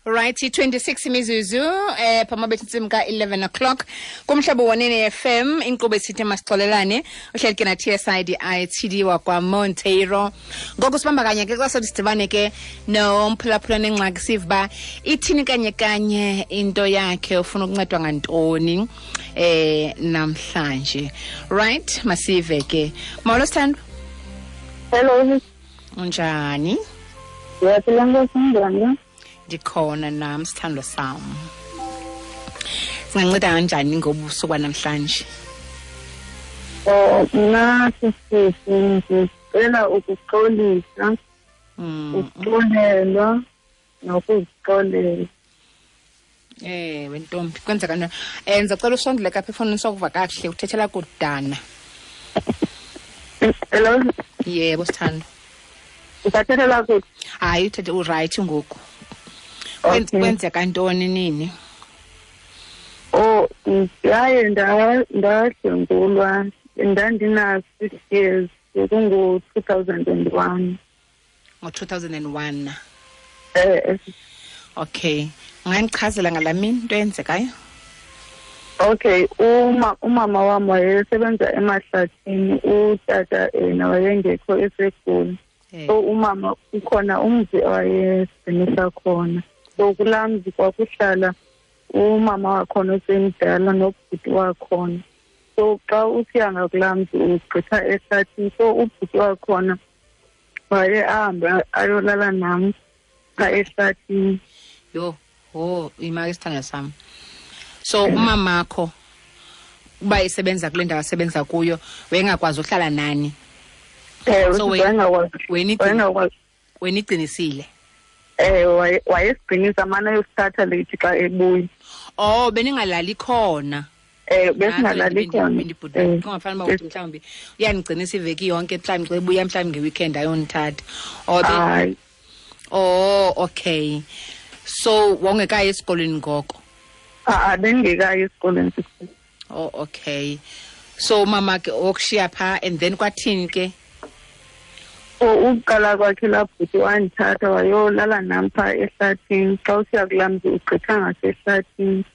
Right, 26 imizuzu phama bethi intsimbi ka-11 o'clock kumhlobo wonene FM, inkqubo esithi masixolelane, uhleli ke na TSIDI TD wakwaMonteiro. Ngoku sibamba kanye ke xa sothi sidibane ke nomphulaphula nengxaki, sive uba ithini kanye kanye into yakhe, ufuna ukuncedwa ngantoni namhlanje. Right, masive ke. Molo sithandwa. Hello. Unjani? Ndiyaphila nkosi, unjani? Ndikhona nam sithandwa sam. Singanceda kanjani ngobusuku banamhlanje? Oh, mna sisisi ndicela ukuxolisa, ukuxolelwa nokuzixolela. Ewe ntombi, kwenzeka ntoni? Ndizocela usondele kapha efowunini sokuva kakuhle, uthethela kudana. Hello? Yebo sithandwa. Usathethela kude? Hayi, uthethe urayithi ngoku. Okay. Kwenzeka ntoni nini? Oh, ndaye ndadlwengulwa, ndandina-6 years, bekungo-2001. Ngo-2001? Okay. Ungandichazela ngalaa mini into eyenzekayo? Okay, umama wam wayesebenza emahlathini, utata yena wayengekho eseGoli. So umama ukhona umzi awayesigcinisa khona. So kulaa mzi kwakuhlala umama wakhona osemdala nobhuti wakhona. So xa usiya ngakulaa mzi ugqitha ehlathini, so ubhuti wakhona waye ahambe ayolala nam phaa ehlathini. Yho, ho, imaki isithandwa sam. So umamakho uba isebenza kule ndawo asebenza kuyo, wayengakwazi uhlala nani? Ewe, So wayengakwazi. Wena igcinisile? Ewe, wayesigcinisa amane ayosithatha leyithi xa ebuya. Oh, beningalali khona? Besingalali khona. Kungafana uba uthi mhlawumbi uyandigcinisa iveki yonke, mhlawumbi xa ebuya mhlawumbi ngeweekend ayondithatha. Oh, Hayi. Oh, okay. So wawungekayi esikolweni ngoko? Ha-a, bendingekayi esikolweni. Oh, okay. So umama ke wokushiya phaa, and then kwathini ke? Oh, ukuqala kwakhe laa bhuti wandithatha wayolala nam phaa ehlathini. Xa usiya kulaa mzi ugqitha ngasehlathini.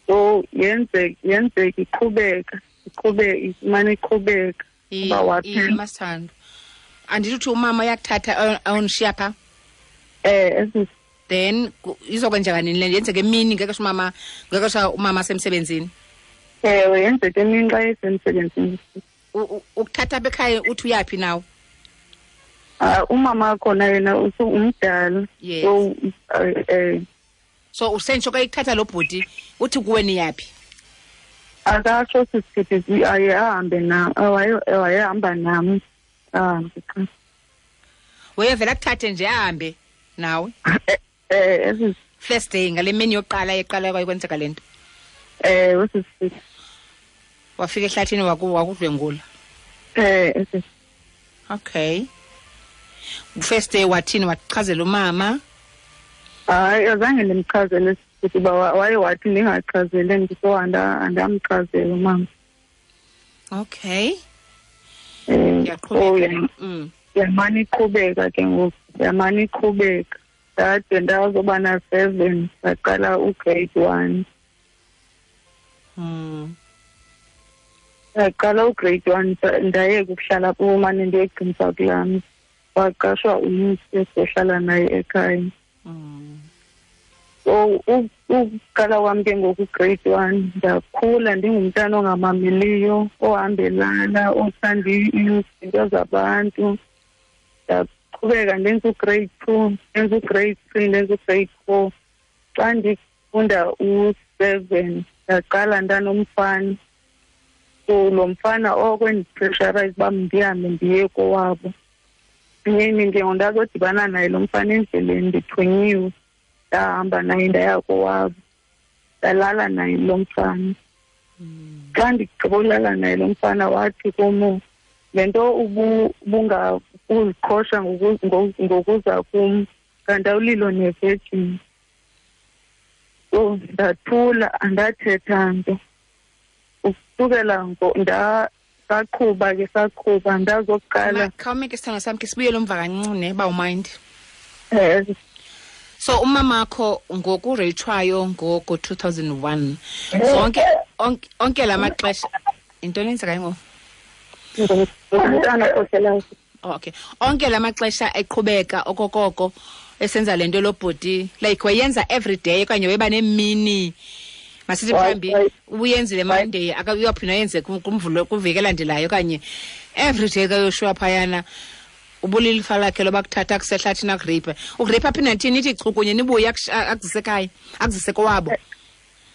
So yenzeka iqhubeka, iqhubeka, imane iqhubeka. Uba waphela. Masithando. Andithi uthi umama uyakuthatha ayondishiya phaa? Then izokwenzeka nini le nto? Yenzeka emini ngexesha umama, ngexesha umama asemsebenzini? Ewe, yenzeka emini xa esemsebenzini. Ukuthatha apha ekhaya uthi uyaphi nawe? Umama wakhona yena umdala. Yes. So So usentsho xa ikuthatha lo bhuti uthi kuwe niyaphi? Akasho sisithi aye ahambe nam, wayehamba nam. Ahambe qha. Wayevela akuthathe nje ahambe nawe? First day ngale mini yokuqala eqala kwayikwenzeka le nto. Usisithi. Wafika ehlathini wakudlwengula. Okay. First day wathini, wachazela umama? Hayi, azange ndimchazele sisithi uba waye wathi ndingachazele mntu, so andamchazela umama. Okay. Ndiyaqhubeka. Yamane iqhubeka ke ngoku, yamane iqhubeka. Ndade ndazoba na-7, ndaqala ugrade 1. Ndaqala ugrade 1, ndayeka ukuhlala kumane ndiyogcinisa kulaa mzi. Waqashwa umntu esizohlala naye ekhaya. So ukuqala kwam ke ngoku grade 1, ndakhula ndingumntana ongamameliyo, ohambelana, othanda izinto zabantu. Ndaqhubeka ndenza ugrade 2, ndenza ugrade 3, ndenza ugrade 4. Xa ndifunda u-7, ndaqala ndanomfana. So lo mfana oko endipressurize uba ndihambe ndiye kowabo. Nyeni ke ngoku ndazodibana naye lo mfana endleleni, ndithunyiwe. Ndahamba naye ndaya kowabo, ndalala naye lo mfana. Xa ndigqiba ulala naye lo mfana wathi kum, le nto ubungakuziqhosha ngokuza kum, kanti awulilo nevirgin. So ndathula, andathetha nto. Ukusukela saqhuba ke, saqhuba, ndazokuqala. Khawume ke sithandwa sam, ke sibuyele umva kancinci ne, uba umind. So umamakho ngokureyithwayo ngoko 2001 zonke onke la maxesha intoni eyenzekayo ngoku? Umntana ohlelayo. Okay. Onke la maxesha eqhubeka okokoko esenza le nto lo bhuti, like wayenza every day okanye weba nemini, masithi mhlawumbi ubuyenzile Monday uyaphinda ayenze kumvulo kwiveki elandelayo, okanye every day kaYoshua phayana ubulilifa lakhe loba kuthatha akusehlathini akureyiphe, ukureyiphe aphinde athini, ithi chu kunye nibuye akuzise ekhaya, akuzise kowabo.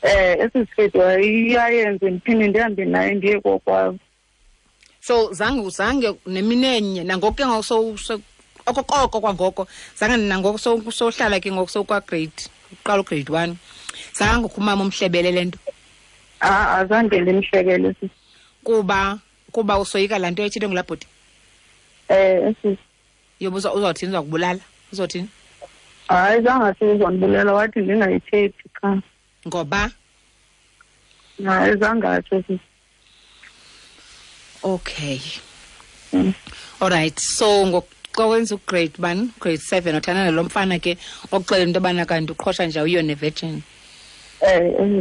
Esi siketi wayeyenze ndiphinde ndihambe naye ndiye kokwabo. So zange nemini enye nangoku ke ngoku okokoko kwangoko zange nangoku sohlala ke ngoku sokwa-grade uqala u-grade 1 zange umama umhlebele le nto? Azange ndimhlebele sisi. Kuba usoyika laa nto ethethwe ngulaa bhuti? Sisi. Yoba uzawuthini, uzawukubulala? Uzothini? Hayi, zange athi uzondibulala, wathi ndingayithethi qha. Ngoba? Hayi, zange atsho sisi. Okay. All right. So ngoxa wenza u-grade 1, grade 7 uthanda nalo mfana ke okuxelela into yobana kanti uqhosha nje awuyiyo ne-virgin.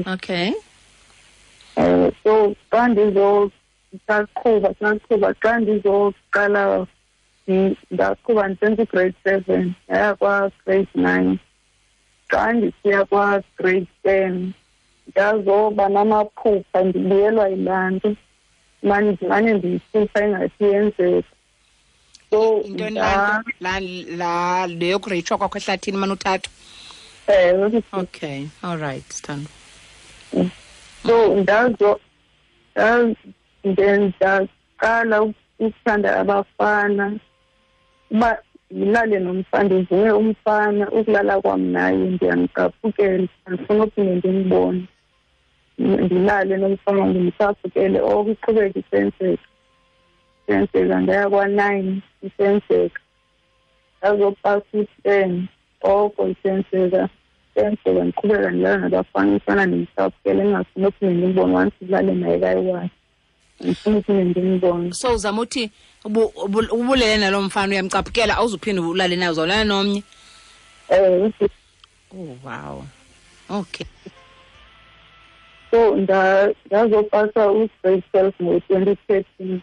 Okay. So xa ndizosaqhuba, xa ndizoqala ndaqhuba ndisenza u-grade 7, ndaya kwa-grade 9. Xa ndisiya kwa-grade 10 ndazoba namaphupha ndibuyelwa yilaa nto. Mane ndiyiphupha ingathi yenzeka. So intoni la leyo kureyithwa kwakho ehlathini mane uthathwa? Okay, all right, Sithando. So ndaqala ukuthanda abafana, uba ndilale nomfana, ndivume umfana, ukulala kwam naye ndiyamcaphukela, andifuni uphinde ndimbone. Ndilale nomfana ndimcaphukele, oko iqhubeka isenzeka. Isenzeka, ndaya kwa-9 isenzeka. Ndazopasa u-10 oko isenzeka. Isenzeka, ndiqhubeka ndilala nabafana, umfana ndimcaphukele, ndingafuni uphinde ndimbone, once ndilale naye kayi-one. Andifuni uphinde ndimbone. So uzama uthi ubulele nalo mfana uyamcaphukela, awuzuphinde ulale naye, uzawulala nomnye? Oh wow. Okay. So ndazopasa u-grade 12 ngo-2013.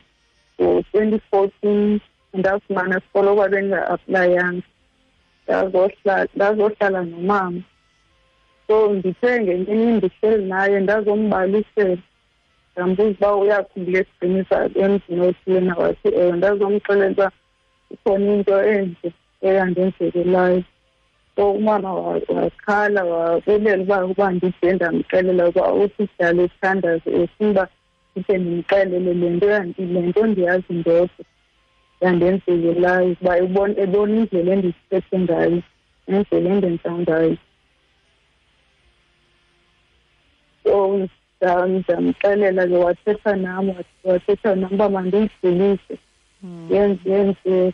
Ngo-2014 ndafumana isikolo kwabe ndinga-aplayanga. Ndazohlala nomama. So ndithe ngenye imini ndihleli naye ndazombalisela. Ndambuza uba uyakhumbula esiqinisa emzini othile na, wathi ewe. Ndazomxelela uba ikhona into enje eyandenzekelayo. So umama wakhala wabulela uba ndide ndamxelela uba uthi sidlale isithandazo efuna uba ndide ndimxelele le nto, le nto ndiyazi ndodwa yandenzekelayo, uba ebona indlela endiziphethe ngayo nendlela endenza ngayo. So ndamxelela ke, wathetha nam uba mandiyidlulise, yenzeke.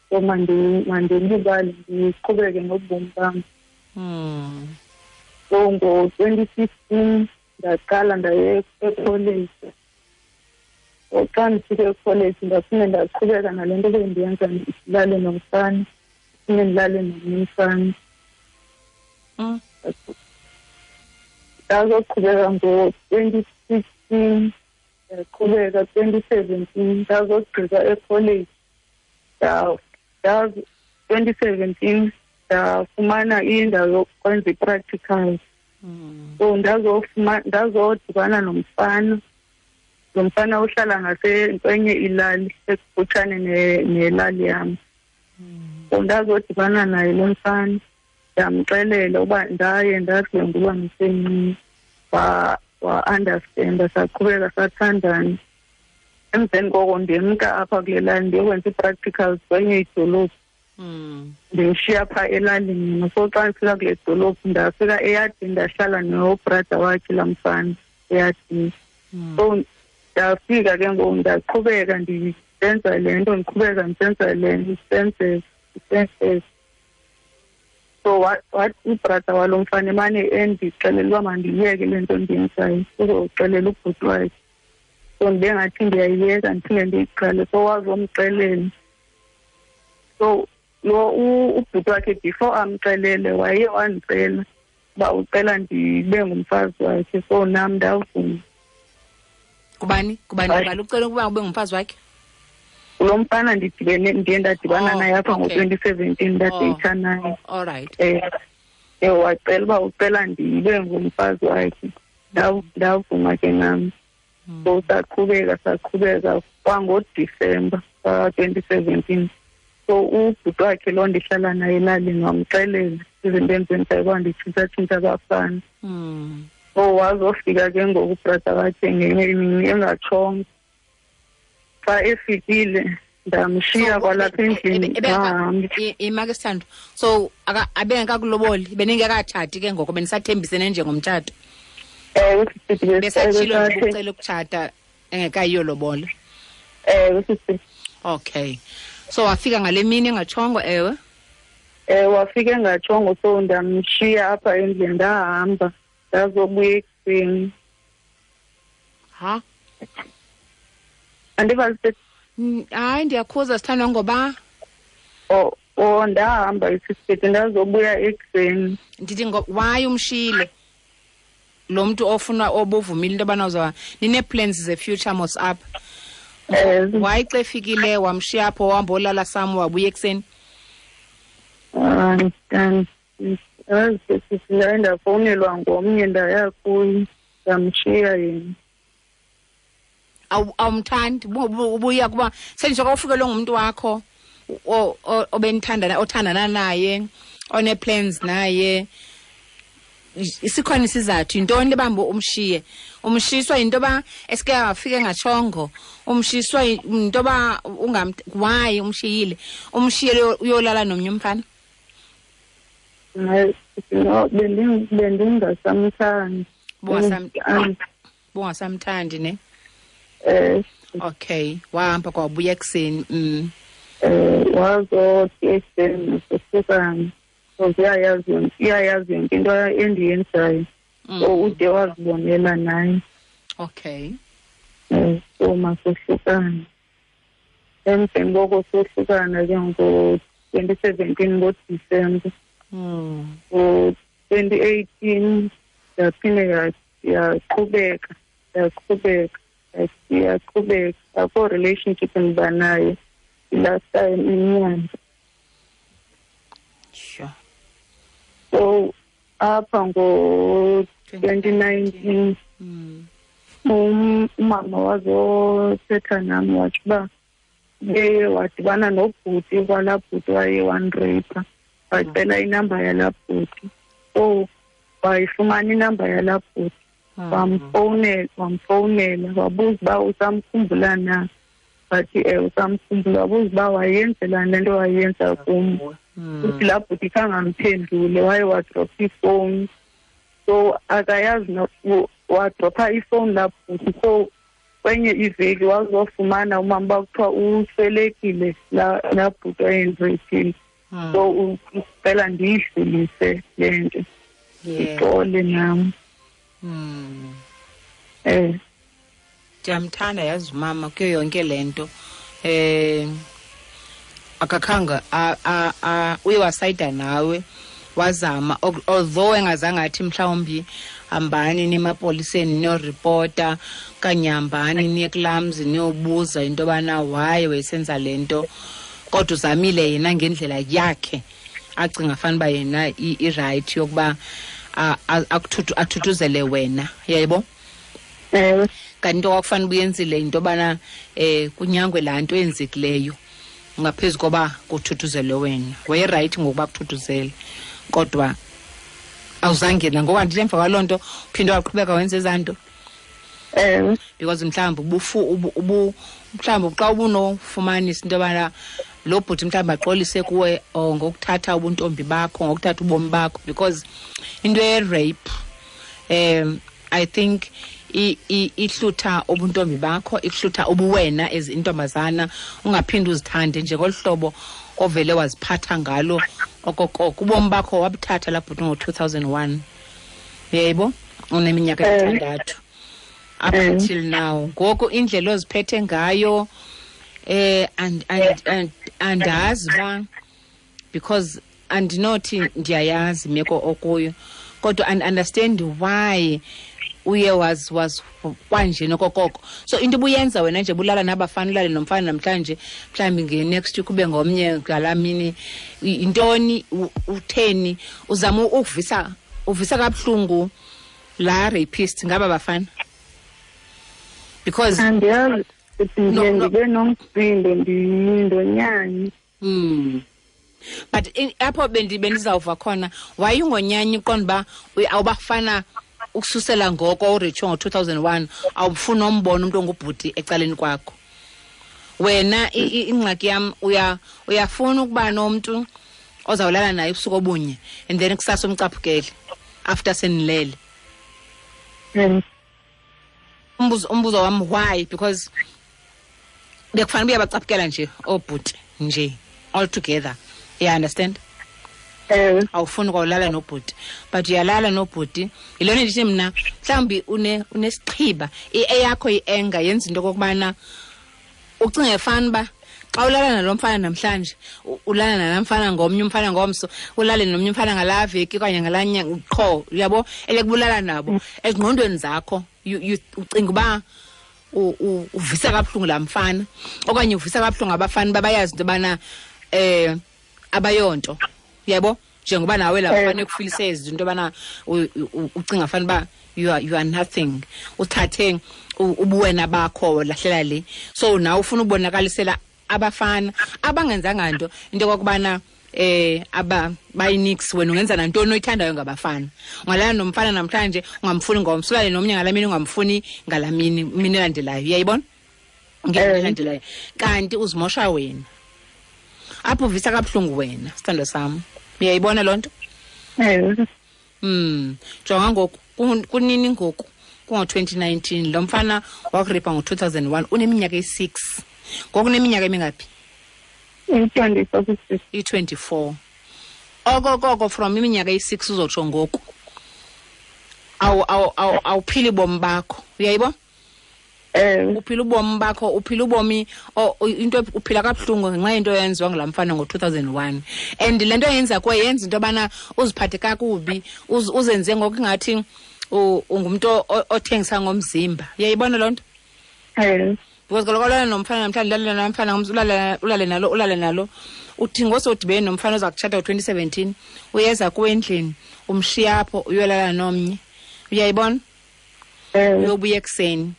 So mandilibale ndiqhubeke nobomi bam. So ngo-2015 ndaqala ndaye ekholeji. So xa ndifike ekholeji ndaphinde ndaqhubeka nale nto bendiyenza, ndilale nomfana, ndiphinde ndilale nomnye umfana. Ndazoqhubeka ngo-2016, ndaqhubeka 2017, ndazogqiba ekholeji. 2017 ndafumana indawo yokwenza i-practicals. So ndazodibana nomfana. Lo mfana uhlala ngasekwenye ilali ekufutshane nelali yam. So ndazodibana naye lo mfana, ndamxelela uba ndaye ndadlwengulwa ndisemncinci. Wa-understanda, saqhubeka sathandana. Emveni koko ndimka apha kule lali ndiyokwenza ii-practicals kwenye idolophu. Ndimshiya phaa elalini mna. So xa ndifika kule dolophu ndafika eyadini, ndahlala nobrada wakhe laa mfana eyadini. So ndafika ke ngoku ndaqhubeka ndisenza le nto, ndiqhubeka ndisenza le nto, isenzeka. So wathi ubrada walo mfana emane endixelela uba mandiyeke le nto ndiyenzayo, uzoxelela ubhuti wakhe. So ndibe ngathi ndiyayiyeka ndiphinde ndiyiqale. So wazomxelela. So Lo ubhuti wakhe before amxelele waye wandicela uba ucela ndibe ngumfazi wakhe, so nam ndavuma. Kubani? Kubani? Ubani ucela ukuba ube ngumfazi wakhe? Lo mfana ndidibene, ndiye ndadibana naye apha ngo-2017, ndadeyitha naye. All right. Wacela uba ucela ndibe ngumfazi wakhe. Ndavuma ke nam. So saqhubeka kwangoDisemba ka-2017. So ubhuti wakhe lo ndihlala naye elalini wamxelela izinto endizenzayo uba nditshintshatshintsha abafana. So wazofika ke ngoku ubrother wakhe ngenye imini engatshongo. Xa efikile ndamshiya kwalapha endlini. Ima ke sithando. So abengekakuloboli, beningekatshati ke ngoko, benisathembisene njengomtshato. Ewe, besatshilo nje ucela ukutshata engekayiyo lobola. Ewe, sisi. Okay. So wafika ngale mini engatshongo, ewe? Wafika engatshongo, so ndamshiya apha endlini ndahamba ndazobuya ekuseni. Ha? Andiva sisi. Hayi, ndiyakhuza sithandwa ngoba ndahamba isisithi ndazobuya ekuseni. Ndithi why umshiyile lo mntu ofuna obuvumile into yobana uzawuba ninee-plans ze-future mos apha? Why xa efikile wamshiya apho wahamba olala sam wabuya ekuseni? Ndaye ndafowunelwa ngomnye ndaya kuye ndamshiya yena. Awumthandi ubuya kuba senje ufikelwe ngumntu wakho obenithandana othandana naye one-plans naye, isikhona isizathu yintoni lebamba umshiye? Umshiswa yinto yoba esike wafika engatshongo, umshiswa yinto yoba why umshiyile? Umshiyele uyolala nomnye umfana? No, bendingasamthandi. Bungasamthandi ne? Okay, wahamba kwabuya ekuseni. Wazothi ekuseni masohlukane. Uyayazi yonke into endiyenzayo. So ude wazibonela naye. Okay. So masohlukane. Emveni koko sohlukana ke ngo-2017 ngoDisemba. Ngo-2018 yaphinde yaqhubeka. Akho relationship endiba nayo last time inyanga. Sure. So apha ngo-2019 umama wazothetha nami wathi uba beye wadibana nobhuti kwalaa bhuti waye wandrapa, wacela inamba yalaa bhuti. So wayifumana inamba yalaa bhuti, wamfowunela wabuza uba usamkhumbula na. Wathi usamkhumbula. Wabuza uba wayenzelani le nto wayenza kum. Uthi laa bhuti khange amphendule, waye wadropha ifowuni. So akayazi wadropha ifowuni laa bhuti. So kwenye iveki wazofumana umama uba kuthiwa uswelekile laa bhuti wayendraphile. So ucela ndiyidlulise le nto, ndixole nam. Ndiyamthanda yazi umama kuyo yonke le nto. Akakhanga uye wasayida nawe wazama, although engazange athi mhlawumbi hambani nemapoliseni niyoripota okanye hambani niye kulaa mzi niyobuza into yobana why wayesenza le nto, kodwa uzamile yena ngendlela yakhe acinga fanuba yena irayithi yokuba athuthuzele wena, yayibo? Kanti into kwakufanele ubuyenzile yinto yobana kunyangwe laa nto eyenzekileyo ngaphezu koba kuthuthuzelwe wena. Wayerayithi ngokuba kuthuthuzele, kodwa awuzange nangoku andithi emva kwaloo nto uphinde waqhubeka wenza ezaa nto. Because mhlawumbi mhlawumbi xa ubunofumanisa into yobana lo bhuti mhlawumbi axolise kuwe ngokuthatha ubuntombi bakho, ngokuthatha ubomi bakho, because into ye-rape I think ihlutha ubuntombi bakho, ihlutha ubuwena as intombazana, ungaphinde uzithande nje ngolu hlobo ovele waziphatha ngalo okokoko. Ubomi bakho wabuthatha laa bhuti ngo-2001, uyayibo? Uneminyaka emithandathu up until now. Ngoku indlela oziphethe ngayo andazi uba Because andinothi ndiyayazi imeko okuyo, kodwa and understand why uye was kwanje nokokoko. So into ubuyenza wena nje, bulala nabafana, ulale nomfana namhlanje, mhlawumbi nge-next week ube ngomnye, ngalaa mini yintoni? Utheni uzama ukuvisa, uvisa kabuhlungu laa rapist ngaba bafana? Because Andiyazi, ndiye No, no. ndibe nomsindo, ndonyanye. But apho bendizawuva khona, wayungonyanya, uqonda uba awubafana ukususela ngoko uritsho ngo-2001, awufuni umbona umntu ongubhuti ecaleni kwakho wena. Ingxaki yam, uyafuna ukuba nomntu ozawulala naye ubusuku obunye and then kusasa umcaphukele after senilele. Umbuzo wam, why? Because bekufanele uba uyabacaphukela nje oobhuti nje all together, you understand? Ewe. Awufuni kwawulala nobhuti, but uyalala nobhuti. Yilona ndithi mna mhlawumbi unesixhiba, eyakho i-anger yenza into okokubana ucinge fana uba xa ulala nalo mfana namhlanje, ulala nalaa mfana ngomnye umfana ngomso, ulale nomnye umfana ngalaa veki okanye ngalaa nyanga qho, uyabo, elekubulala nabo ezingqondweni zakho, ucinga uba uvisa kabuhlungu laa mfana okanye uvisa kabuhlungu abafana uba bayazi into yobana abayonto, uyabo, njengoba nawe laa mfana ekufilise ezi into yobana ucinga fana uba you are nothing, uthathe ubuwena bakho lahlela le. So nawe ufuna ubonakalisela abafana abangenzanga nto into yokokubana aba bayinix, wena ungenza nantoni oyithandayo ngabafana. Ungalala nomfana namhlanje, ungamfuni ngomso, ulale nomnye ngalaa mini, ungamfuni ngalaa mini elandelayo, uyayibona, ngemini elandelayo, kanti uzimosha wena apho, uvisa kabuhlungu wena, sithando sam. Uyayibona loo nto? Ewe. Jonga ngoku, kunini ngoku? Kungo-2019 lo mfana wakuripa ngo-2001, uneminyaka eyi-6 ngoku. Uneminyaka emingaphi? I-24 sisi. I-24. Okokoko from iminyaka eyi-6 uzotsho ngoku, awuphili bomi bakho, uyayibona? Ewe. Uphila ubomi bakho, uphila ubomi into uphila kabuhlungu ngenxa yento eyenziwa ngulaa mfana ngo-2001, and le nto yenza kuwe yenza into yobana uziphathe kakubi, uzenze ngokungathi ungumntu othengisa ngomzimba, uyayibona loo nto? Ewe. Because kaloku ulala nomfana namhlanje, ulale namfana ngomso, ulale nalo, ulale nalo, uthi ngosodibene nomfana oza kutshata ngo-2017, uyeza kuwe endlini, umshiya apho, uyolala nomnye, uyayibona? Ewe. Uyobuya ekuseni.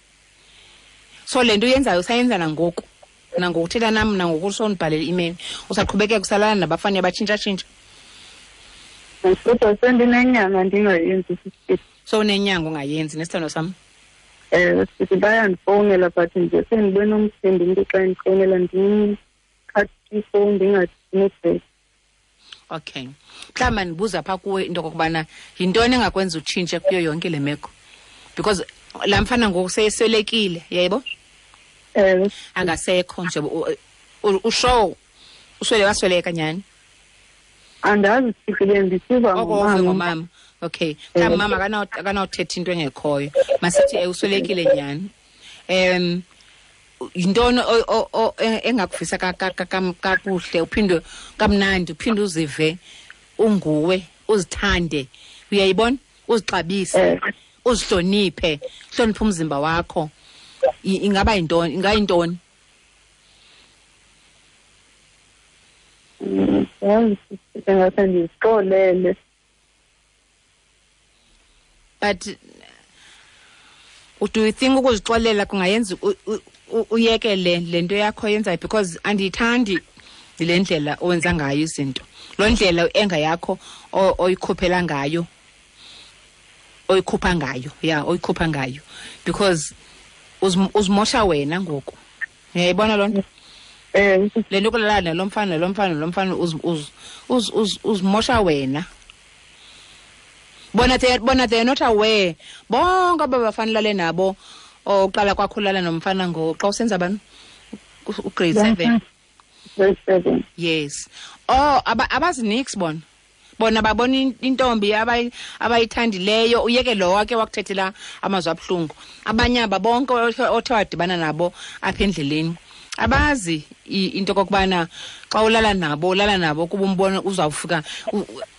So le nto uyenzayo usayenza nangoku, nangoku uthetha nam, nangoku usondibhalela i-email, usaqhubekeka usalala nabafana, uyabatshintshatshintsha. Kodwa sendinenyanga ndingayenzi sisi. So unenyanga ungayenzi, nesithando sam? Ewe sisi, bayandifowunela, but nje sendibe nomsindo, umntu xa endifowunela ndikhathi ifowuni ndingathi. Okay, mhlawumbi mandibuza phaa kuwe into okokubana yintoni engakwenza utshintshe kuyo yonke le meko, because laa mfana ngoku seyeswelekile, yayibo? Ewe. Angasekho nje, ushow uswele, wasweleka nyhani? Andazi sisi, bendisiva oko uve ngomama. Ngomama, okay. Mhlawumbi mama akanawuthetha into engekhoyo. Masithi uswelekile nyhani. Yintoni engakuvisa kakuhle, uphinde kamnandi, uphinde uzive unguwe, uzithande, uyayibona, uzixabise, uzihloniphe, hloniphe umzimba wakho? Ingaba yintoni, ingayintoni? Yazi sisi, ngase ndizixolele. But do you think ukuzixolela kungayenza uyeke le nto yakho yenzayo? Because andiyithandi le ndlela owenza ngayo izinto, loo ndlela enga yakho oyikhuphela ngayo, oyikhupha ngayo, ya, oyikhupha ngayo, because uzimosha wena ngoku, uyayibona loo nto? Le nto kulala nalo mfana, nalo mfana, nalo mfana, uzimosha wena. Bona they are not aware bonke aba bafana ulale nabo, oqala kwakho ulala nomfana ngo xa usenza bani, ugrade 7. Grade 7. Yes. Oh, abazinix bona. Bona babona intombi abayithandileyo, uyeke lo wake wakuthethela amazwi abuhlungu. Abanye aba bonke othe wadibana nabo apha endleleni Abazi into kokubana xa ulala nabo, ulala nabo kuba umbona uzawufika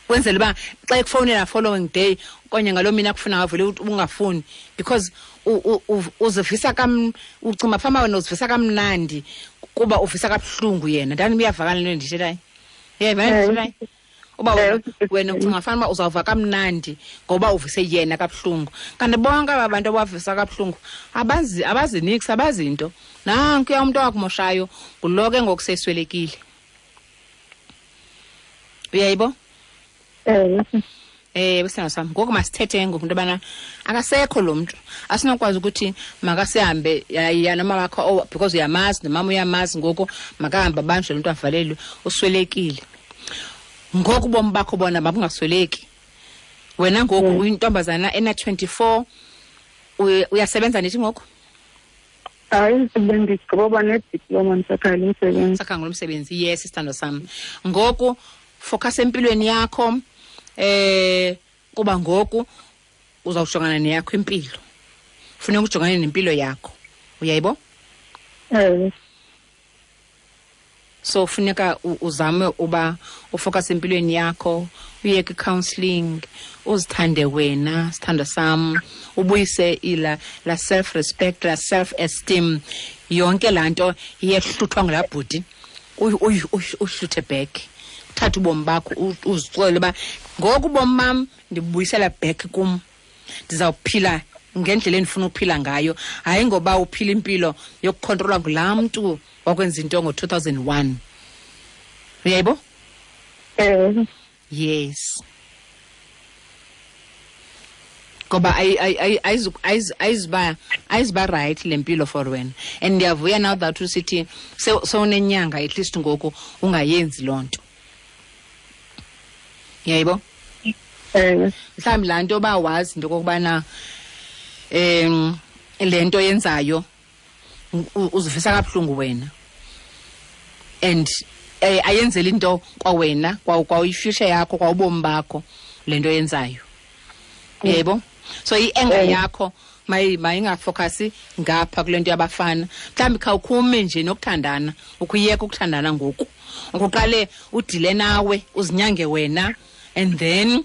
kwenzela uba xa ekufowunela following day okanye ngaloo mini akufuna ngavele ungafuni, because uzivisa ucinga fama wena uzivisa kamnandi kuba uvisa kabuhlungu yena. Ndani uyavakala into endiyithethayo? Uyayivana ndiyithethayo? Uba wena ucinga fana uba uzawuva kamnandi ngoba uvise yena kabuhlungu. Kanti bonke aba bantu abavisa kabuhlungu abazi niks, abazi nto. Nankuya umntu owakumoshayo ngulo ke ngoku seswelekile. Uyayibo? Besana sam. Ngoku masithethe ngoku into yobana akasekho lo mntu. Asinokwazi ukuthi makasihambe ya noma wakho, because uyamazi nomama uyamazi, ngoku makahambe abanjwe lo mntu avalelwe, uswelekile. Ngoku ubomi bakho bona mabungasweleki. Wena ngoku uyintombazana ena-24, uyasebenza nithi ngoku? Hayi, bendigqiba nediploma, ndisakhangela umsebenzi. Sakhangela umsebenzi, yes, isithando sam. Ngoku focus empilweni yakho, kuba ngoku uzawujongana neyakho impilo. Funeka ujongane nempilo yakho. Uyayibo? So funeka uzame uba ufocus empilweni yakho, uye kwi-counseling, uzithande wena, sithando sam, ubuyise ila la self respect, la self esteem, yonke laa nto iyehluthwa ngulaa bhuti, uyihluthe back. Uthathe ubomi bakho, uzixolele uba ngoku ubomi bam ndibuyisela back kum, ndizawuphila ngendlela endifuna ukuphila ngayo, hayi ngoba uphila impilo yokukhontrolwa ngulaa mntu wakwenza into ngo-2001. Uyayibo? Yes. Ngoba ayizuba right le mpilo for wena. And ndiyavuya now that usithi sewunenyanga at least ngoku ungayenzi loo nto. Uyayibo? Mhlawumbi laa nto uba wazi into okokubana le nto yenzayo uzivisa kabuhlungu wena, and ayenzeli into kwawena, kwa i-future yakho, kwa ubomi bakho le nto yenzayo. Yebo? So i-anger yakho mayingafocasi ngapha kule nto yabafana. Mhlawumbi khawukhume nje nokuthandana, ukuyeka ukuthandana ngoku. Ukuqale udile nawe, uzinyange wena, and then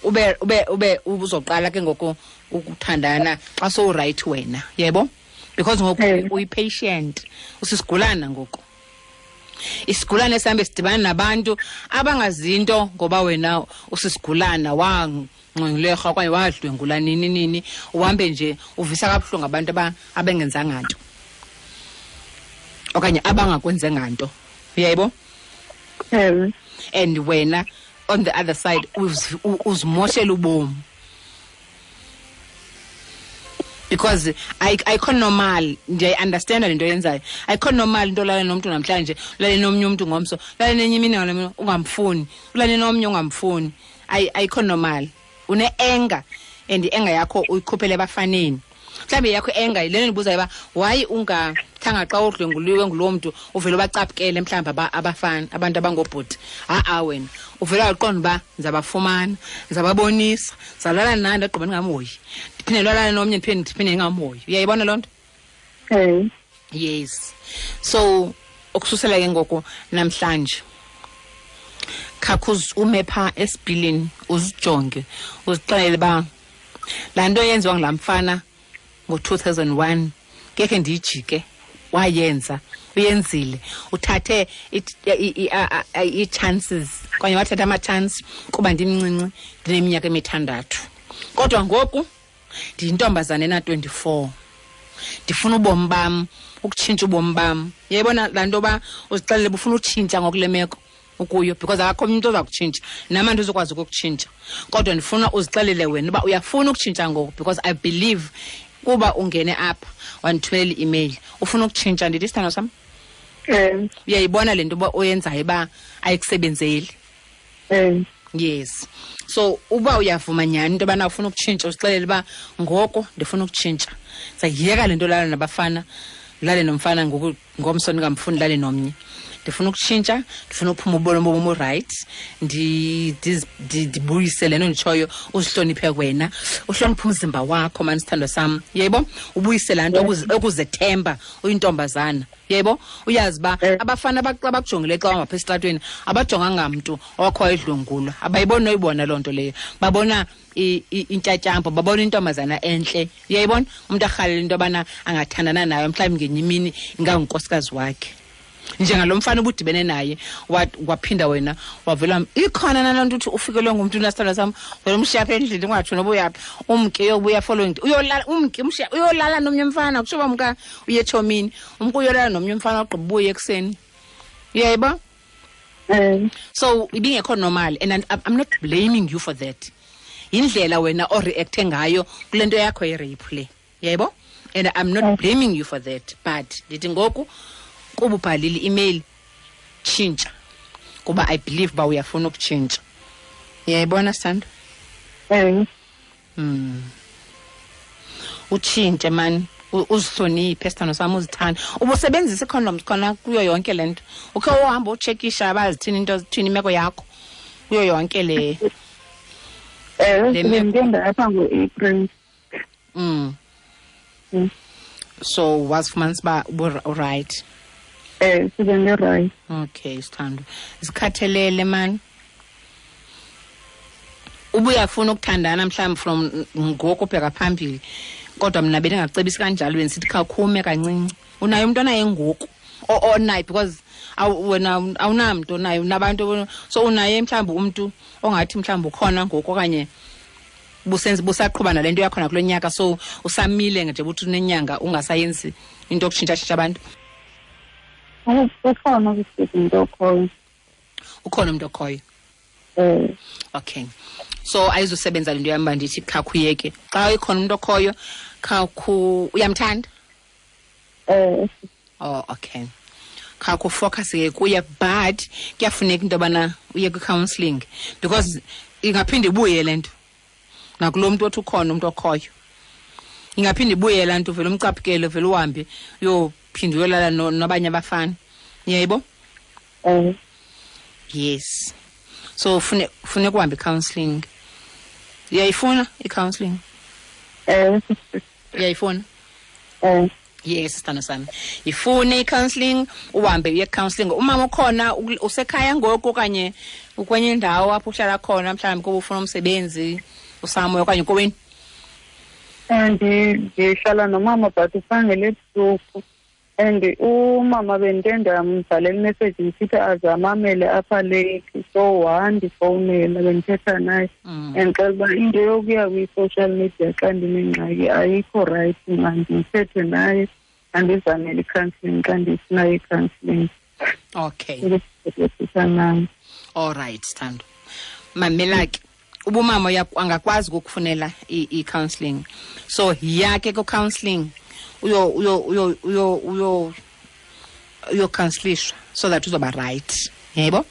ube uzoqala ke ngoku ukuthandana xa sowurayithi wena. Yebo? Because ngoku uyi-patient, usisigulana ngoku. Isigulane esihambe sidibana nabantu abangazinto ngoba wena usisigulana, wangcwengulerha okanye wadlwengula nini nini, uhambe nje uvisa kabuhlungu abantu abengenzanga nto okanye abangakwenzenga nto. Uyayibo? And wena on the other side uzimoshela ubomi. Because ayikho normal, ndiyayi-understanda le nto yenzayo. Ayikho normal into olala nomntu namhlanje, ulale nomnye umntu ngomso, ulale nenye imini ngalo ungamfuni, ulale nomnye ungamfuni. Ayikho normal. Une-anger, and i-anger yakho uyikhuphele ebafaneni. Mhlawumbi yakho i-anger le nto ndibuzayo uba why ungathanga xa udlwenguliwe ngulo mntu uvele ubacaphukele mhlawumbi abafana, abantu abangobhuti. Ha-a wena uvele waqonda uba ndizabafumana, ndizababonisa, ndizawulala naye ndagqiba ndingamhoyi, ndiphinde ndilale nomnye ndiphinde ndingamhoyi. Uyayibona loo nto? Yes. So ukususela ke ngoku namhlanje, khakhe ume phaa esipilini uzijonge, uzixelele uba laa nto yenziwa ngulaa mfana ngo-2001 ngekhe ndiyijike, wayenza, uyenzile, uthathe ii-chances okanye wathatha ama-chance kuba ndimncinci, ndineminyaka emithandathu. Kodwa ngoku ndiyintombazana ena-24, ndifuna ubomi bam, ukutshintsha ubomi bam. Uyayibona laa nto uba uzixelele uba ufuna utshintsha ngoku le meko ukuyo, because akakho omnye umntu oza kutshintsha, nam andizukwazi ukukutshintsha. Kodwa ndifuna uzixelele wena uba uyafuna ukutshintsha ngoku, because I believe kuba ungene apha wandithumelela i-email ufuna ukutshintsha. Ndithi isithando sam? Uyayibona le nto uba oyenzayo uba ayikusebenzeli? Yes. So uba uyavuma nyhani into yobana ufuna ukutshintsha, uzixelele uba ngoku ndifuna ukutshintsha, ndizayiyeka le nto lala nabafana, lale nomfana ngoku, ngomso ndingamfuni lale nomnye. Ndifuna ukutshintsha, ndifuna uphuma ubomi bomi right, ndibuyise le nto nditshoyo, uzihloniphe wena, uhloniphe umzimba wakho mani sithandwa sam, yebo, ubuyise laa nto okuzethemba uyintombazana, yebo, uyazi uba abafana abakujongile xa uhamba esitratweni abajonganga mntu owakho wayedlwengulwa, abayiboni noyibona loo nto leyo, babona intyatyambo, babona intombazana entle, uyayibona, umntu arhalela into yobana angathandana nayo mhlawumbi ngenye imini ingangunkosikazi wakhe. Njengalo mfana ubudibene naye waphinda wena wavela ikhona naloo nto uthi ufikelwe ngumntu nasithandwa sam, wena umshiya apha endlini ungatsho noba uyaphi, umke uyobuya following, uyolala umke umshiya uyolala nomnye umfana, kutsho uba mka uye etshomi, umke uyolala nomnye umfana ogqiba ubuye ekuseni, uyayiba? So ibingekho normal, and I'm not blaming you for that. Yindlela wena oreacte ngayo kule nto yakho ye-rape le, uyayibo? And I'm not blaming you for that, but ndithi ngoku kuba ubhalile i-email, tshintsha, kuba I believe uba uyafuna ukutshintsha. Uyayibona, Sithando? Utshintshe mani, uzihloniphe sithando sam, uzithande. Ubusebenzisa ii-condoms khona kuyo yonke le nto? Ukhe uhamba utshekisha bazithini into, zithini imeko yakho kuyo yonke le? Ndiye ndapha ngo-April. So wazifumanisa uba urayithi? Sibe ndirayithi. Okay, sithando, zikhathelele mani. Ubuyafuna ukuthandana mhlawumbi from ngoku ubheka phambili, kodwa mna bendingacebisi kanjalo, bendisithi khawukhume kancinci. Unaye umntu onaye ngoku onaye, because wena awunamntu onaye, unabantu, so unaye mhlawumbi umntu ongathi mhlawumbi ukhona ngoku okanye busaqhuba nale nto yakhona kulo nyaka, so usamile nje uthi unenyanga ungasayenzi into yokutshintshatshintsha abantu. Ukhona umntu okhoyo. Ukhona umntu okhoyo? Okay, so ayizusebenza le nto yam uba ndithi khakhuyeke. Xa ikhona umntu okhoyo, khakhu uyamthanda? Oh, okay. Khakhu focus ke kuye, but kuyafuneka into yobana uye kwi-counselling, because ingaphinde ibuye le nto nakulo mntu othi ukhona umntu okhoyo, ingaphinde ibuye laa nto, uvele umcaphukele, uvele uhambe uyophinde uyolala nabanye abafana, uyayibo? Yes, so funeka uhambe i-counselling. Uyayifuna i-counselling? Uyayifuna? Yes, sithando sami, ifune i-counselling, uhambe uye counselling. Umama ukhona, usekhaya ngoku okanye ukwenye indawo apho uhlala khona, mhlawumbi kuba ufuna umsebenzi usamoya okanye kowenu? Ndihlala nomama, but uphangela ebusuku, and umama bendike ndambhalela imessage ndisithi aze amamele apha late, so wandifowunela, bendithetha naye, and xela uba into yokuya kwi-social media xa ndinengxaki ayikho rayithi, mandithethe naye, andizamele i-counselling xa ndifuna i-counselling. Ukuthetha naye. All right, sithando, mamela ke, ubumama angakwazi ukukufunela i-counselling, so yiya ke ku-counselling, uyo uyo uyo uyo uyo uyocounselishwa so that uzoba right, yebo?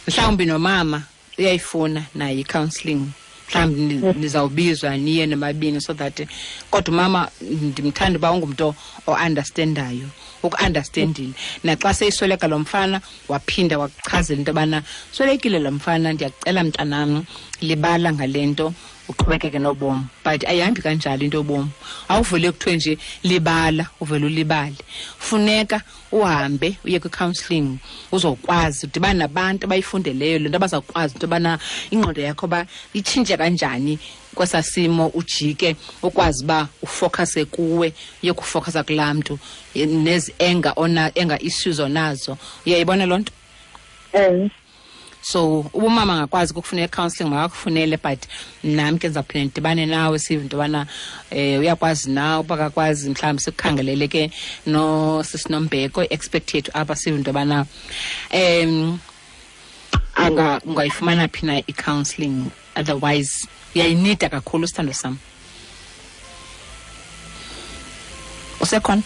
Mhlawumbi nomama uyayifuna naye i-counselling, mhlawumbi nizawubizwa niye nomabini, so that, kodwa umama ndimthanda uba ungumntu o-understandayo, uku-understandile naxa seyisweleka lo mfana, waphinda wakuchazela into yobana swelekile lo mfana, ndiyakucela mntanam, libala ngale nto, uqhubekeke nobomi. But ayihambi kanjalo into yobomi, awuvele kuthiwe nje libala uvele ulibale. Funeka uhambe uye kwi-counselling, uzokwazi udibane nabantu abayifundeleyo le nto, abazawukwazi into yobana ingqondo yakho uba itshintshe kanjani kwesaa simo, ujike ukwazi uba ufocuse kuwe, uye kufocusa kulaa mntu nezi anger ona anger issues onazo, uyayibona loo nto? So ubumama angakwazi ukukufunela i-counselling, makakufunele, but nam ke ndizawuphinda ndidibane nawe, sive into yobana uyakwazi na, uba akakwazi mhlawumbi sikukhangelele ke nosisinombeko, i-expert yethu apha, sive into yobana ungayifumana phi na i-counselling, otherwise uyayinida kakhulu, sithando sam. Usekhona?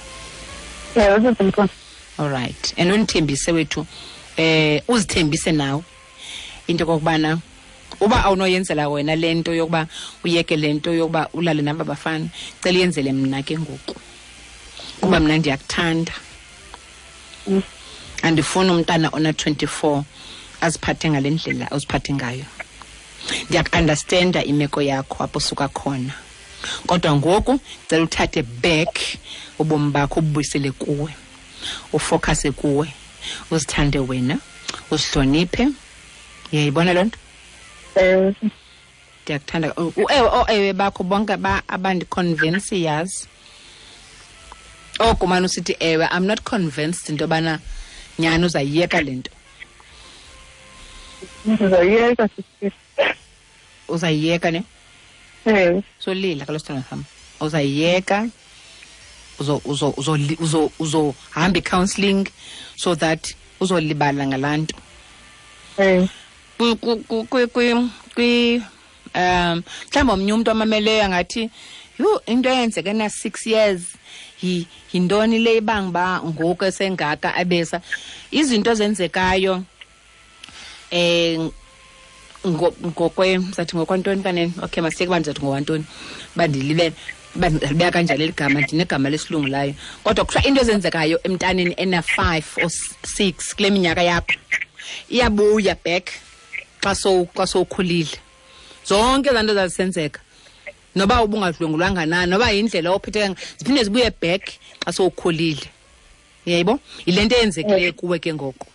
Ewe, sesemkhona. All right, and undithembise wethu, uzithembise nawe into kokubana uba awunoyenzela wena le nto yokuba uyeke le nto yokuba ulale naba bafana, cela uyenzele mna ke ngoku, kuba mna ndiyakuthanda. Andifuni umntana ona 24 aziphathe ngale ndlela oziphathe ngayo. Ndiyaku-understanda imeko yakho apho usuka khona, kodwa ngoku cela uthathe back ubomi bakho, ububuyisele kuwe, ufocuse kuwe, uzithande wena, uzihloniphe. Uyayibona loo nto? Ewe. Ndiyakuthanda. Ewe, ooewe bakho bonke abandiconvince, yazi. Oko mane usithi ewe, I'm not convinced into yobana nyhani uzayiyeka le nto. Ndizayiyeka, sisi. Uzayiyeka ne? Ewe. Solila kaloku, sithandwa sam. Uzayiyeka, uzohamba i-counselling so that uzolibala ngalaa nto. Ewe. Mhlawumbi omnye umntu amameleyo angathi, yhu, into eyenzeke na-6 years, yintoni le ibanga uba ngoku esengaka abesa? Izinto ezenzekayo, ngokwe, sathi ngokwantoni kanene? Okay, masiyeke uba ndizathi ngokwantoni, uba ndilibele, uba ndilibeka kanjani eli gama, ndinegama lesilungu layo. Kodwa kuthiwa into ezenzekayo emntaneni ena-5 or 6 kule minyaka yakho iyabuya back xa sowukhulile. Zonke ezaa nto zazisenzeka, noba ubungadlwengulwanga na, noba yindlela ophetheka, ziphinde zibuye back xa sowukhulile. Uyayibo? Yile nto eyenzekileyo kuwe ke ngoku.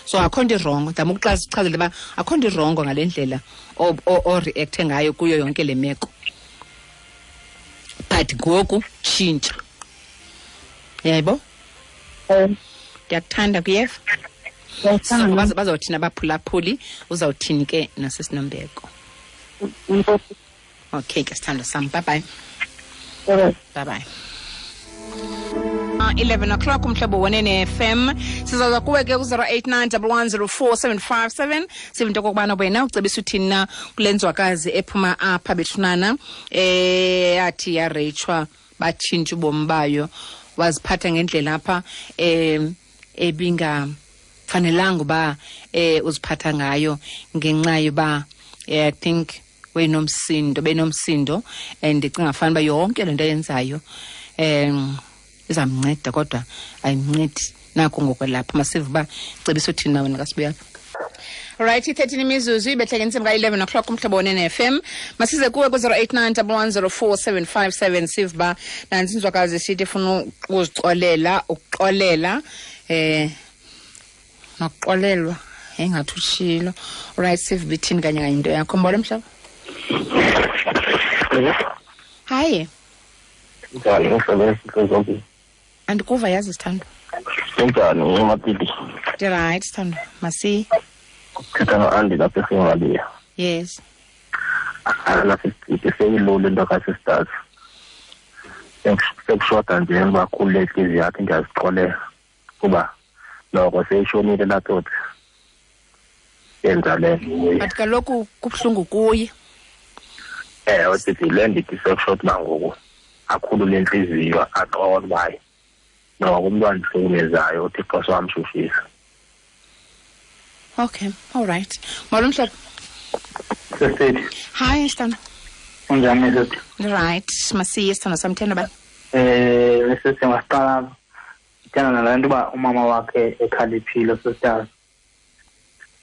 So akho nto irongo. Ndizama ukuchazela uba akho nto irongo ngale ndlela o-reacte ngayo kuyo yonke le meko. But ngoku tshintsha. Uyayibo? Ndiyakuthanda, kuyeva? Ndiyakuthanda. So, bazawuthini abaphulaphuli, uzawuthini ke nasesinombeko? Enkosi. Okay ke, sithandwa sam. Bye bye. Bye-bye. Bye bye. 11 o'clock umhlobo wenene FM. Sizaza kuwe ke ku-zero eight nine double one zero four seven five seven. Sive into okokubana wena ucebisa uthini na kule nzwakazi ephuma apha bethunana, yathi yareyitshwa, batshintsha ubomi bayo, waziphatha ngendlela apha, ebingafanelanga uba, uziphatha ngayo ngenxa yoba, I think benomsindo, and ndicinga fanuba yonke le nto ayenzayo, izamnceda, kodwa ayimncedi nako ngokwelapha. Masive uba cebisa uthini na wena kasibuya apha. Right, i-13 imizuzu ibehleke intsimbi ka-11 o'clock umhlobo wenene FM. Masize kuwe ku-zero eight nine double one zero four seven five seven. Sive uba nantsi inzwakazi isithi ifuna ukuzixolela, ukuxolela, nokuxolelwa, engathi utshilo. Right, sive uba ithini kanye kanye into yakho. Mbona mhlobo? Hayi. Njani, mhlobo, esitho Andikuva yazi, sithandwa. Kunjani, uMapiti? Ndi-right, sithandwa. Masi. Thetha no-Andy lapha eSingaliya. Yes. Alapha esititi seyilula into ka-sisters. Sekushoda nje uba khulule intliziyo yakhe, ndiyazixolela kuba noko seyishonile laa tsotsi. Yenza le nto kuye. But kaloku kubuhlungu kuye. Ewe, sisi, le ndithi sekushoda uba ngoku akhulule intliziyo, axole uba hayi, noko umntu andihlukumezayo uThixo sowamshushisa. Okay, all right. Molo mhlobo. Sisithi. Hi, Sithando. Unjani, sisi? Right, masiye Sithando sam, thenda ba? Sisi, masiqala ndithanda nalaa nto uba umama wakhe ekhaliphile, sisters.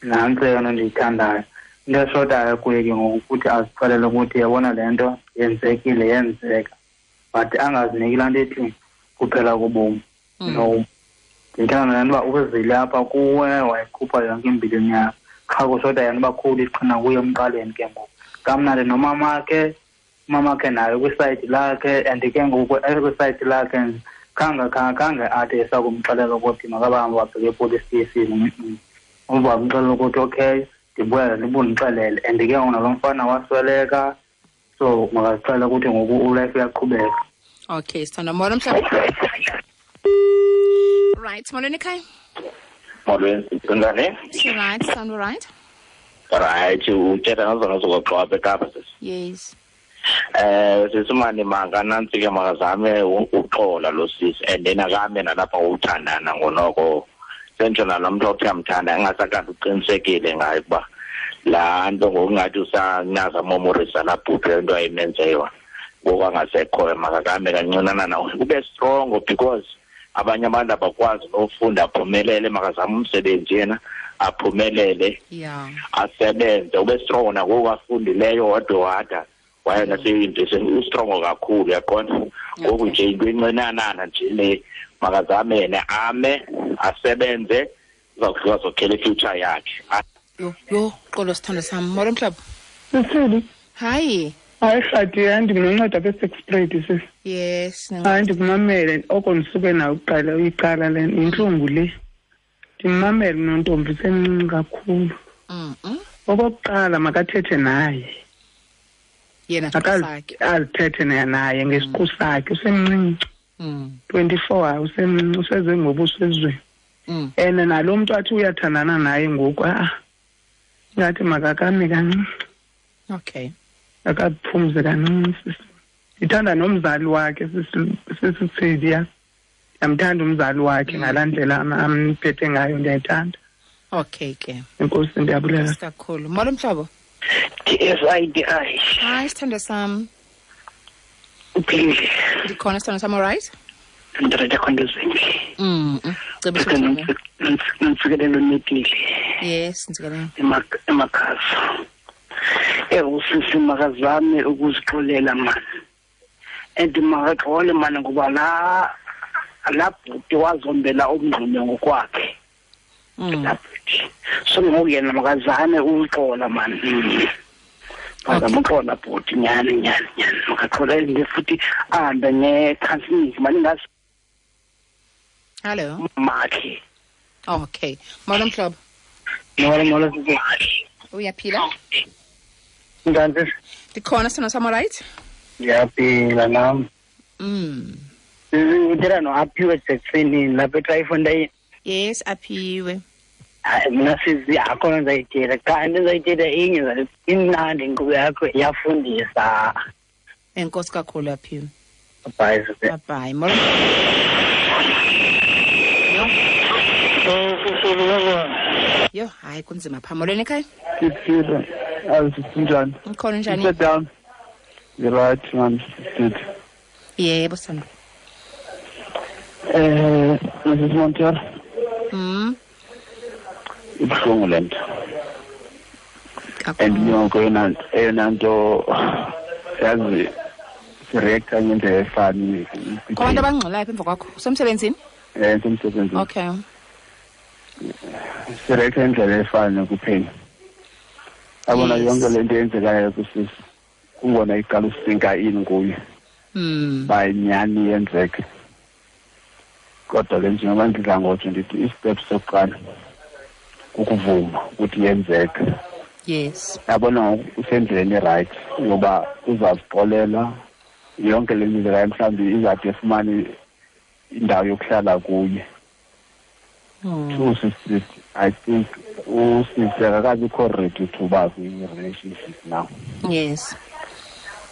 Nantsi eyona ndiyithandayo. Into eshotayo kuye ke ngoku ukuthi azixelele ukuthi yabona le nto yenzekile, yenzeka. But angaziniki laa nto ethi kuphela kobomi. No. Ndithanda nalaa nto uba uzile apha kuwe, wayikhupha yonke imbilini yakho. Qha kushota yena uba khulu iqhina kuye emqaleni ke ngoku. Kamnandi nomamakhe, umamakhe naye kwisayidi lakhe, and ke ngoku ekwisayidi lakhe khange athi esakumxelela ukuthi makabahambe wabheke epolice station. Umva wamxelela ukuthi okay, ndibuya ndibundixelele. And ke ngoku nalo mfana wasweleka, so makazixelele ukuthi ngoku ulife uyaqhubeka. Okay, sithanda. Molo mhlobo. Right, molweni ekhaya. Molweni, kunjani? Right, sound right? Right, uthetha ngazona zokuxoxa apha eKapa, sisi. Yes. Sisi mani manga nantsi ke makazame uxola lo sisi, and then akame nalapha uthandana ngonoko. Sentsho nalo mntu othi uyamthanda engasakade uqinisekile ngaye ukuba laa nto ngokungathi usanaza momorisa laa bhuti le nto ayimenze yona. Ngoku angasekhoyo makakame kancinanana, ube strong because Abanye abantu abakwazi nofunda aphumelele, makazame umsebenzi yena aphumelele. Asebenze, ube strong nangoku afundileyo wade waye naseyunivesithi, ustrong kakhulu, uyaqonda. Ngoku nje into encinanana nje le, makazame yena ame asebenze, uzawufika azokhela i-future yakhe. Yho, xolo sithando sam. Molo mhlobo. Sisili. Hayi. Hayi Rhadi, hayi ndikunonceda apha eSexprade sisi. Yes. Hayi ndikumamele oko ndisuke nayo kuqala uyiqala le intlungu le. Ndimamele nontombi semncinci kakhulu. Okokuqala makathethe naye. Yena sakhe. Azithethe naye ngesiqu sakhe, usemncinci. 24 usemncinci, useze ngobuso ezweni. And nalo mntu athi uyathandana naye ngoku ngathi makakame kancinci. Okay. Akaphumze kancinci sisi. Ndithanda nomzali wakhe sisi. Ndiyamthanda umzali wakhe ngalaa ndlela amphethe ngayo, ndiyayithanda. Okay ke. Enkosi, ndiyabulela kakhulu. Molo mhlobo. TSIDI. Hayi sithando sam. Uphilile. Ndikhona sithando sam, all right? Ndirete khonto zinhle. Ntsikelelo netile. Yes, ntsikelelo. Emakhaza. Usisi makazame ukuzixolela mani. And makaxole mani ngoba la bhuti wazombela umngxunya ngokwakhe. La bhuti. So ngoku yena makazame ukuxola mani. Makaxola bhuti nyani. Makaxola nje futhi ahambe nge-counseling mani ngazi. Hello. Makhe. Okay. Molo mhlobo. Molo sisi. Uyaphila? Njani sisi? Ndikhona sithando sam, all right? Ndiyaphila nam. Uthetha no-Aphiwe Jackson lapha eTrayfontein. Yes, Aphiwe. Hayi mna sisi akho nto ndizayithetha. Qha into ndizayithetha inye, imnandi inkqubo yakho, iyafundisa. Enkosi kakhulu Aphiwe. Bye sisi. Bye. Molo. Yo, hayi kunzima pha. Molweni ekhaya. Siphile. Azi sinjani? Ngikhona, njani? Sit down. You're right, man. Good. Yebo sithando. Mrs. Montero. Ibuhlungu le nto. And yonke eyona nto yazi sireacta ngendlela efani. Kho abantu abangxolayo apha emva kwakho. Usemsebenzini? Ndisemsebenzini. Okay. Sireacta ngendlela efani kuphela. Yabona yonke le nto eyenzekayo kusisi kungona iqala usinka ini kuye. Bayinyani yenzeke. Kodwa ke njengoba ndidla ngotsho ndithi istep sokuqala kukuvuma ukuthi yenzeke. Yes. Yabona usendleleni right ngoba uzazixolela yonke le ndlela, mhlawumbi izade efumane indawo yokuhlala kuye. Two sisters, I think usisi akakabikho ready to uba kwi-relationship now. Yes.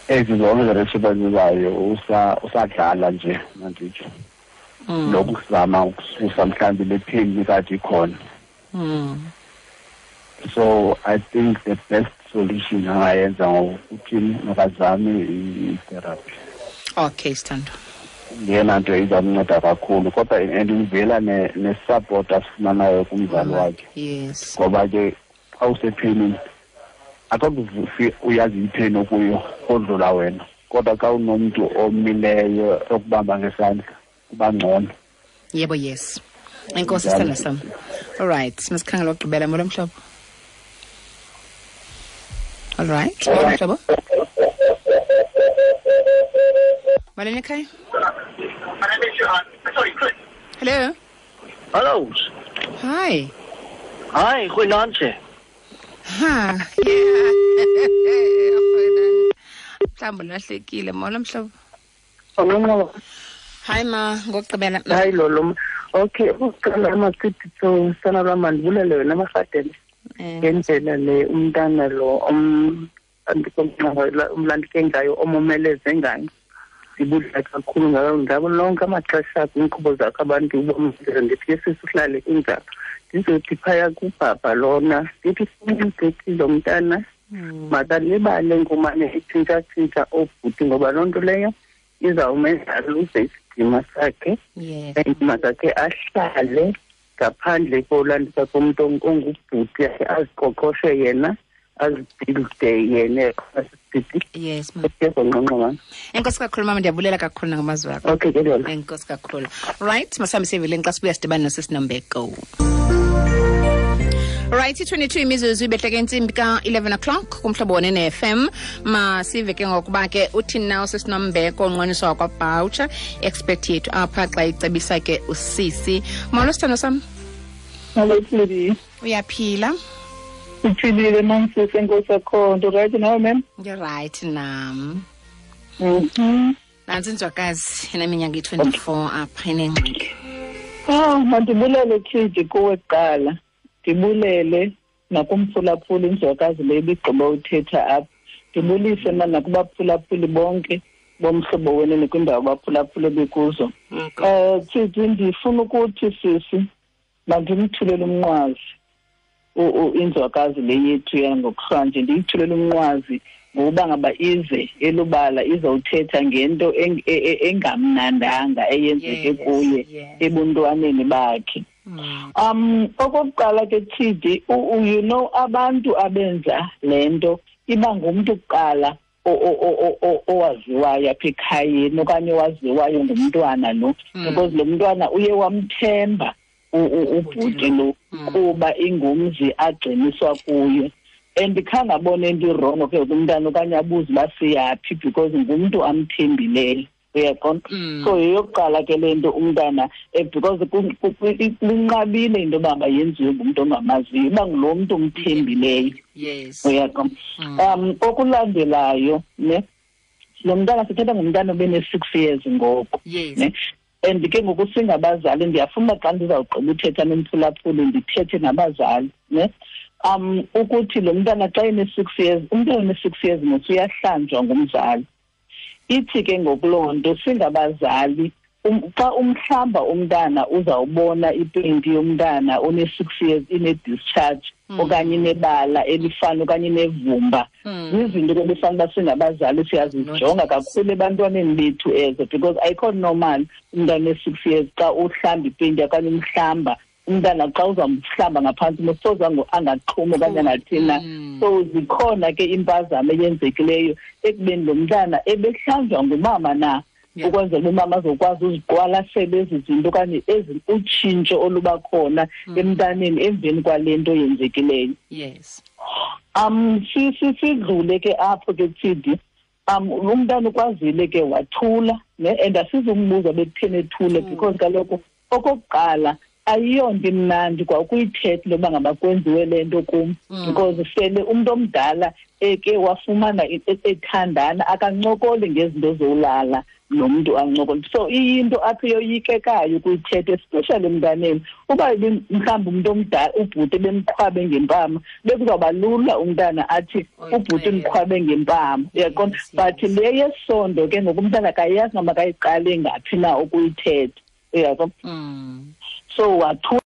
Ezi zonke relationship azizayo usadlala nje manditsho. Lokuzama ukususa mhlawumbi le pain ikade ikhona. So I think the best solution angayenza ngokuthi makazame i-therapy. Okay, sithando. Yena nto izamnceda kakhulu, kodwa and ivela ne-support asifumanayo kumzali wakhe. Yes. Ngoba ke xa usephenini akakuvufi uyazi ipheni okuyo odlula wena, kodwa xa unomntu omileyo okubamba ngesandla kuba ngcono. Yebo, yes. Enkosi sithando sam. All right, masikhangela ukugqibela. Molo mhlobo. All right, molo mhlobo. Molweni ekhaya. Hello. Hello. Hi. Hi, goeienaand. Ha. Yeah. Mhlawumbi ulahlekile. Molo mhlobo. Molo. Hi ma, ngokugqibela. Hayi lolo. Okay, ukuqala amasithi so sana lwam mandibulele wena Marhadebe. Ngendlela le umntana lo umlandike ngayo, omomeleze ngayo. Ndibulela kakhulu ngabo lonke amaxesha kwiinkqubo zakho abantu ubomeleze. Ndithi ke sisi uhlale kunjalo. Ndizothi phaya kubhabha lona, ndithi simgqithile lo mntana makalibale ngomane etshintshatshintsha oobhuti, ngoba loo nto leyo izawumenza aluze isidima sakhe. And makakhe ahlale ngaphandle kolandisa komntu ongubhuti, aziqoqoshe yena, azibuilde yena. Yes, ma'am. Enkosi kakhulu mama, ndiyabulela kakhulu nangamazwi akho. Okay, ke lona. Enkosi kakhulu. Right, masihambe siyeveleni xa sibuya sidibane nosisinombeko. Right, 22 imizuzu ibehleke intsimbi ka-11 o'clock kumhlobo wonene FM. Masive ke ngokuba ke uthini na usisinombeko onqweniswa wakwaBoucher, expert yethu apha xa icebisa ke usisi. Molo sithando sam. Molo Sidi. Uyaphila? Uphilile mamsisi, enkosi akho nto. Right nawe ma'am? Right nam. Nantsi inzwakazi eneminyaka i-24 apha inengxaki. Ah, mandibulele Tshidi kuwe kuqala. Ndibulele nakumphulaphuli inzwakazi le ibigqiba uthetha apha. Ndibulise mna nakubaphulaphuli bonke bomhlobo wenene kwindawo abaphulaphule bekuzo. Tshidi, ndifuna ukuthi sisi mandimthulele umnqwazi inzwakazi le yethu yangokuhlanje. Ndiyithulele umnqwazi ngokuba ngaba ize elubala izawuthetha ngento engamnandanga eyenzeke kuye ebuntwaneni bakhe. Okokuqala ke Tshidi, you know abantu abenza le nto iba ngumntu kuqala owaziwayo apha ekhayeni okanye owaziwayo ngumntwana lo, because lo mntwana uye wamthemba ubhuti lo kuba ingumzi agciniswa kuyo. And khange abone into irongo ke kumntana okanye abuze uba siyaphi because ngumntu amthembileyo. Uyaqonda? So yeyokuqala ke le nto umntana, because linqabile into yoba yenziwe ngumntu ongamaziyo, iba ngulo mntu umthembileyo. Yes. Uyaqonda? Okulandelayo ne, lo mntana sithetha ngumntana obene-6 years ngoku. Yes. Ne? And ke ngoku singabazali, ndiyafuna xa ndizawugqiba uthetha nomphulaphuli ndithethe nabazali ne. Ukuthi lo mntana xa ene-6 years, umntana one-6 years mos uyahlanjwa ngumzali. Ithi ke ngokuloo nto singabazali, xa umhlamba umntana uzawubona ipenti yomntana one-6 years ine-discharge okanye inebala elifana okanye inevumba. Zizinto ke befanele uba singabazali siyazijonga kakhulu ebantwaneni bethu ezo, because ayikho normal umntana one-6 years xa uhlamba ipenti okanye umhlamba umntana xa uzamhlamba ngaphantsi mosoze angaxhumi okanye angathina. So zikhona ke impazamo eyenzekileyo ekubeni lo mntana ebehlanjwa ngumama na, ukwenzela umama azokwazi uziqwalasela ezi zinto okanye ezi utshintsho oluba khona emntaneni emveni kwale nto yenzekileyo. Yes. Sidlule ke apho ke Tshidi. Umntana ukwazile ke wathula ne, and asizumbuza bekutheni ethule because kaloku okokuqala ayiyonto imnandi kwa ukuyithetha loba ngaba kwenziwe le nto kum, because sele umntu omdala eke wafumana ethandana akancokoli ngezinto zolala nomntu ancokole. So iyinto apho yoyikekayo ukuyithetha, especially emntaneni. Uba mhlawumbi umntu omdala ubhuti bemqhwabe ngempama, bekuzawuba lula umntana athi ubhuti umqhwabe ngempama, uyaqonda? But le yesondo ke ngoku umntana akayazi noba makayiqale ngaphi na ukuyithetha, uyaqonda? So wathula.